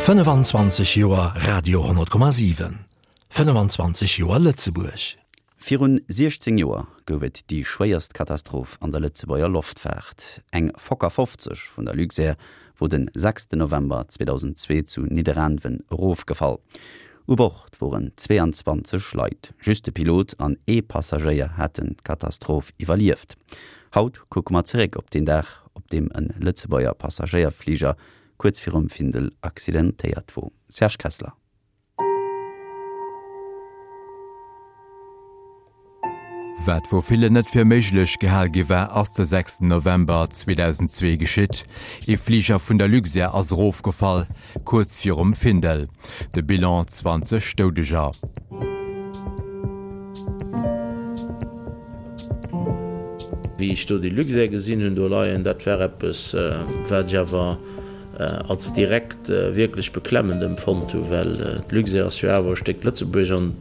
25 Joer Radio 10,7, 25 Joer Lëtzebuerg. Virun 16 Joer gouf et déi schwéierst Katastroph an der Lëtzebuerger Loftfaart. Eng Fokker 50 vun der Luxair wor den 6 November 2002 zu Nidderaanwen erofgefall. U Bord woren 22 Leit, just de Pilot an ee Passagéier haten d'Katastroph iwwerlieft. Haut kucke mer zeréck op deen Dag, op deem e Lëtzebuerger Passagéierfliger kuerz virum Findel accidentéiert wor. Serge Kessler. Wat vu villen net fir méiglech gehal gi war, ass de 6 November 2002 geschitt. Ee Fliger vun der Luxair ass erofgefall, kuerz virum Findel. De Bilan, 20 Doudeger. Wéi ech do déi Luxair gesinn hunn do leien, dat war eppes, wat ech awer als direkt wierklech beklemmend empfonnt hunn, well d'Luxair ass jo awer e Stéck Lëtzebuerg an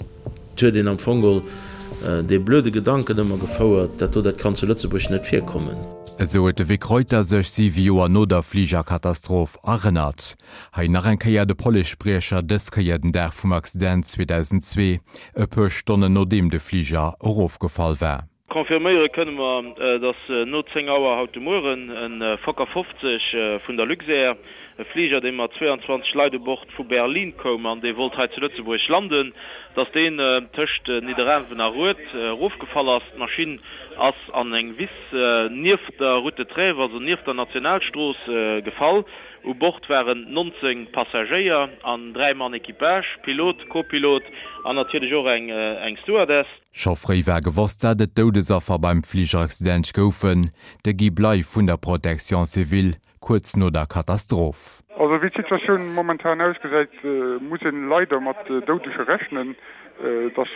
Et huet een am Fong geholl dee blöde Gedanken ëmmer gefouert, dat do, dat kann zu Lëtzebuerg net virkommen. Esou huet de Vic Reuter sech siwe Joer no der Fligerkatastroph erënnert. Hei nach eng Kéier de Policespriecher, dës Kéier den Dag vum Accident 2002, e puer Stonnen nodeem de Fliger erofgefall war. Confirméiere kënne mer, datt no 10 Auer haut de Mueren e Fokker 50 vun der Luxair, e Fliger dee mat 22 Leit u Bord vu Berlin koum an dee wollt hei zu Lëtzebuerg landen, datt deen tëscht Nidderaanwen a Rued erofgefall ass. D'Maschinn ass an eng Wiss nieft der Route de Trèves, also nieft der Nationalstrooss, gefall. U Bord waren 19 Passagéier an 3 Mann Equipage, Pilot, Co-Pilot an natierlech och eng Stewardess. Scho fréi war gewosst, dat et Doudesaffer beim Fligeraccident goufen, de Guy Bley vun der Protection civile kuerz no der Katastroph. Also wéi d'Situatioun momentan ausgesäit, muss een leider mat Doudege rechnen. Et ass,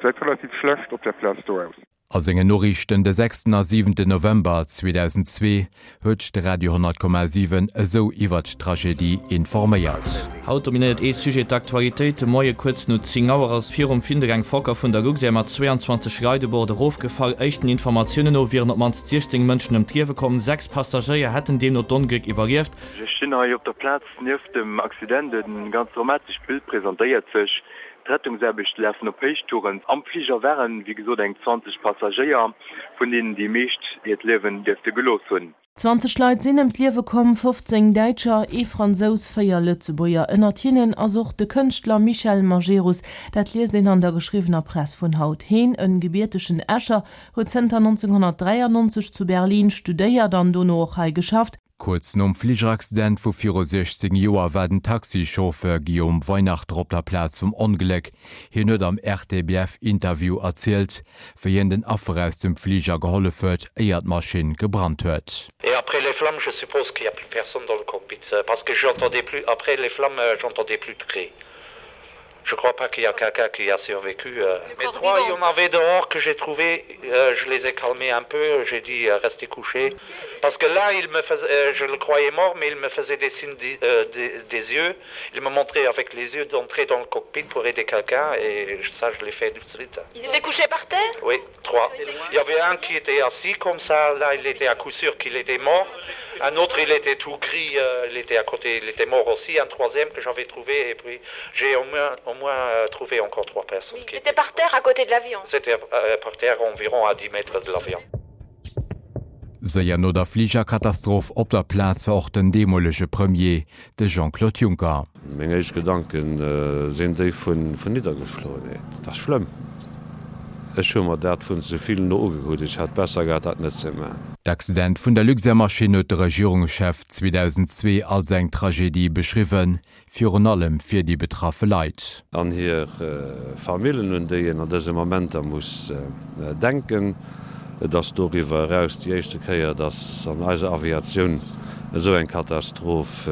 gesäit relativ schlecht op där Plaz do aus. A sengen Noriichten de sechsten a siwenten November 2002 huet de Radio 100,7 esou iwwert d'Tragedie informéiert. Haut dominéiert ee Sujet d'Aktualitéit. De Moie kuerz no 10 Auer ass virum Findel eng Fokker vun der Luxair mat 22 Leit u Bord erofgefall. Éischten Informatiounen no wieren op d'mannst 16 Mënschen ëm d'Liewe komm. 6 Passagéier hätten deemno d'Ongléck iwwerlieft. Ech stinn hei op der Plaz nieft dem Accident. E ganz dramatescht Bild presentéiert sech. D'Rettungsaarbechte lafen op Héichtouren. Am Fliger waren, wéi gesot, eng 20 Passagéier, vun deenen déi meescht hiert Liewen dierfte gelooss hunn. 20 Leit sinn ëm d'Liewe komm, 15 Däitscher, ee Fransous, 4 Lëtzebuerger. Ënnert hinnen ass och de Kënschtler Michel Majerus. Dat liest een an der geschriwwener Press vun haut. Heen, en gebiertegen Escher, huet zënter 1993 zu Berlin studéiert an dono och hei geschafft. Kuerz nom Fligeraccident vu viru 16 Joer war den Taxichauffeur Guillaume Weinachter op der Plaz vum Ongléck. Hien huet am RTBF-Interview erzielt, wéi hien den Affer aus dem Fliger gehollef huet, éier d'Maschinn gebrannt huet. Et après les flammes, je suppose qu'il y a plus personne dans le cockpit, parce que j'entendais plus, après les flammes, j'entendais plus de cris. Je crois pas qu'il y a quelqu'un qui a survécu. Euh. Mais trois, il y en avait dehors que j'ai trouvé, euh, je les ai calmés un peu, j'ai dit euh, restez couchés. Parce que là, il me faisait, euh, je le croyais mort, mais il me faisait des signes des, euh, des, des yeux. Il me montrait avec les yeux d'entrer dans le cockpit pour aider quelqu'un et ça, je l'ai fait tout de suite. Il était couché par terre Oui, trois. Il y avait un qui était assis comme ça, là il était à coup sûr qu'il était mort. Un autre, il était tout gris, euh, il était à côté, il était mort aussi. Un troisième que j'avais trouvé et puis j'ai au moins, au moins euh, trouvé encore trois personnes. Qui étaient par terre à côté de l'avion. C'était euh, par terre environ à 10 mètres de l'avion. Séier no der Fligerkatastroph op der Plaz war och den deemolege Premier, de Jean-Claude Juncker. Meng éischt Gedanke sinn déi vun Niddergeschloenheet. Dat ass schlëmm. Ech hu mer dat vun ze vill no ugekuckt. Ech hätt besser gehat, dat net ze man. D'Accident vun der Luxair-Maschinn huet de Regierungschef 2002 als eng Tragedie beschriwwen, Virun allem fir déi betraffe Leit. An hir Famillen, un déi een an dëse Momenter muss denken. Et ass doriwwer eraus déi éischte Kéier, datt an eiser Aviatioun esou eng Katastroph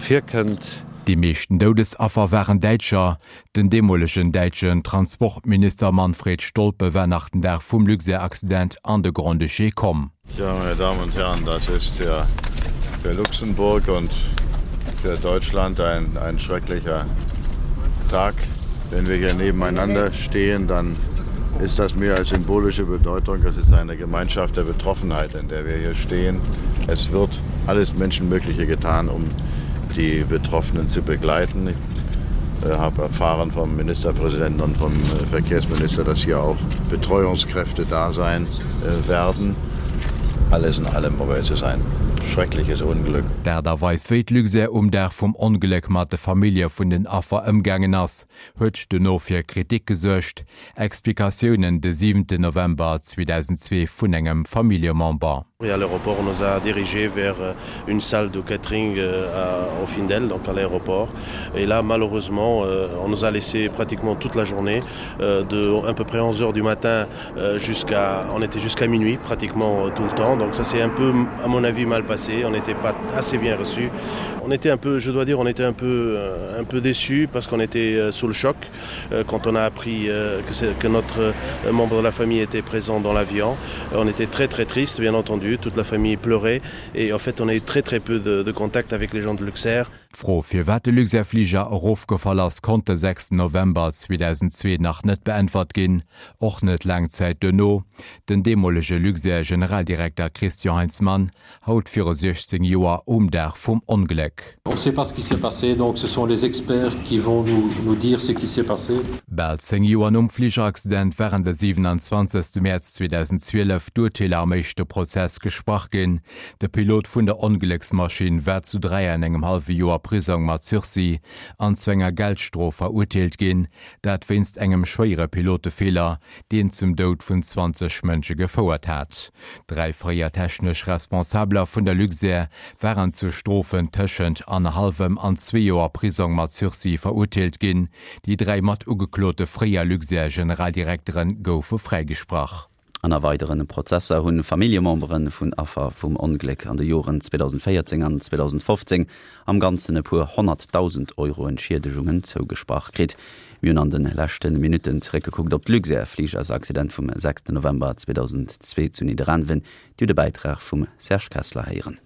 virkënnt. Déi meeschten Doudesaffer waren Däitscher. Den deemolegen däitschen Transportminister Manfred Stolpe war nach den Dag vum Luxair-Accident an de Grand-Duché komm. Ja, meine Damen und Herren, das ist ja für Luxemburg und für Deutschland ein, ein schrecklicher Tag. Wenn wir hier nebeneinander stehen, dann ist das mehr als symbolische Bedeutung. Es ist eine Gemeinschaft der Betroffenheit, in der wir hier stehen. Es wird alles Menschenmögliche getan, um. die Betroffenen zu begleiten. Ich äh, habe erfahren vom Ministerpräsidenten und vom äh, Verkehrsminister, dass hier auch Betreuungskräfte da sein äh, werden. Alles in allem aber es ist ein schreckliches Unglück. D'Aart a Weis wéi d'Luxair um Dag vum Ongléck mat de Famillje vun den Affer ëmgaangen ass, huet dono fir Kritik gesuergt. Explikatiounen de 7 November 2002 vun engem Familljemember. Et à l'aéroport, on nous a dirigés vers une salle de catering au Findel, donc à l'aéroport. Et là, malheureusement, on nous a laissé pratiquement toute la journée, de à peu près 11 heures du matin jusqu'à on était jusqu'à minuit pratiquement tout le temps. Donc ça s'est un peu, à mon avis, mal passé. On n'était pas assez bien reçus. On était un peu, je dois dire, on était un peu, un peu déçus parce qu'on était sous le choc quand on a appris que, que notre membre de la famille était présent dans l'avion. On était très très triste, bien entendu, toute la famille pleurait et en fait on a eu très très peu de, de contact avec les gens de Luxair. D'Fro, firwat de Luxair-Fliger erofgefall ass, konnt de 6 November 2002 nach net beäntwert ginn, och net laang Zäit duerno. Den deemolege Luxair-Generaldirekter Christian Heinzmann haut viru 16 Joer um Dag vum Ongléck. On sait pas ce qui s'est passé, donc ce sont les experts qui vont nous nous dire ce qui s'est passé. Bal 10 Joer nom Fligeraccident waren de 27 Mäerz 2012 d'Urteeler am éischte Prozess gesprach ginn. De Pilot vun der Onglécksmaschinn war zu 3 an engem hallwe Joer Prisong mat Sursis an zu enger Geldstrof verurteelt ginn, dat wéinst engem schwéiere Pilotefeeler, deen zum Doud vun 20 Mënsche gefouert hat. Dräi fréier technesch Responsabeler vun der Luxair waren zu Strofen tëschent annerhallwem an zwee Joer Prisong mat Sursis verurteelt ginn. Déi dräi mat ugeklote fréier Luxair-Generaldirektere goufe fräigesprach. An a weidere Prozesser hu Familljemembere vun Affer vum Ongléck an de Joren 2014 an 2015 am Ganzen e puer 100.000 Euro Entschiedegungen zougesprach kritt. Mir hunn an de leschte Minutten zeréckgekuckt op d'Luxair-Fligersaccident vum 6 November 2002 zu Nidderaanwen. Dir hutt e Bäitrag vum Serge Kessler héieren.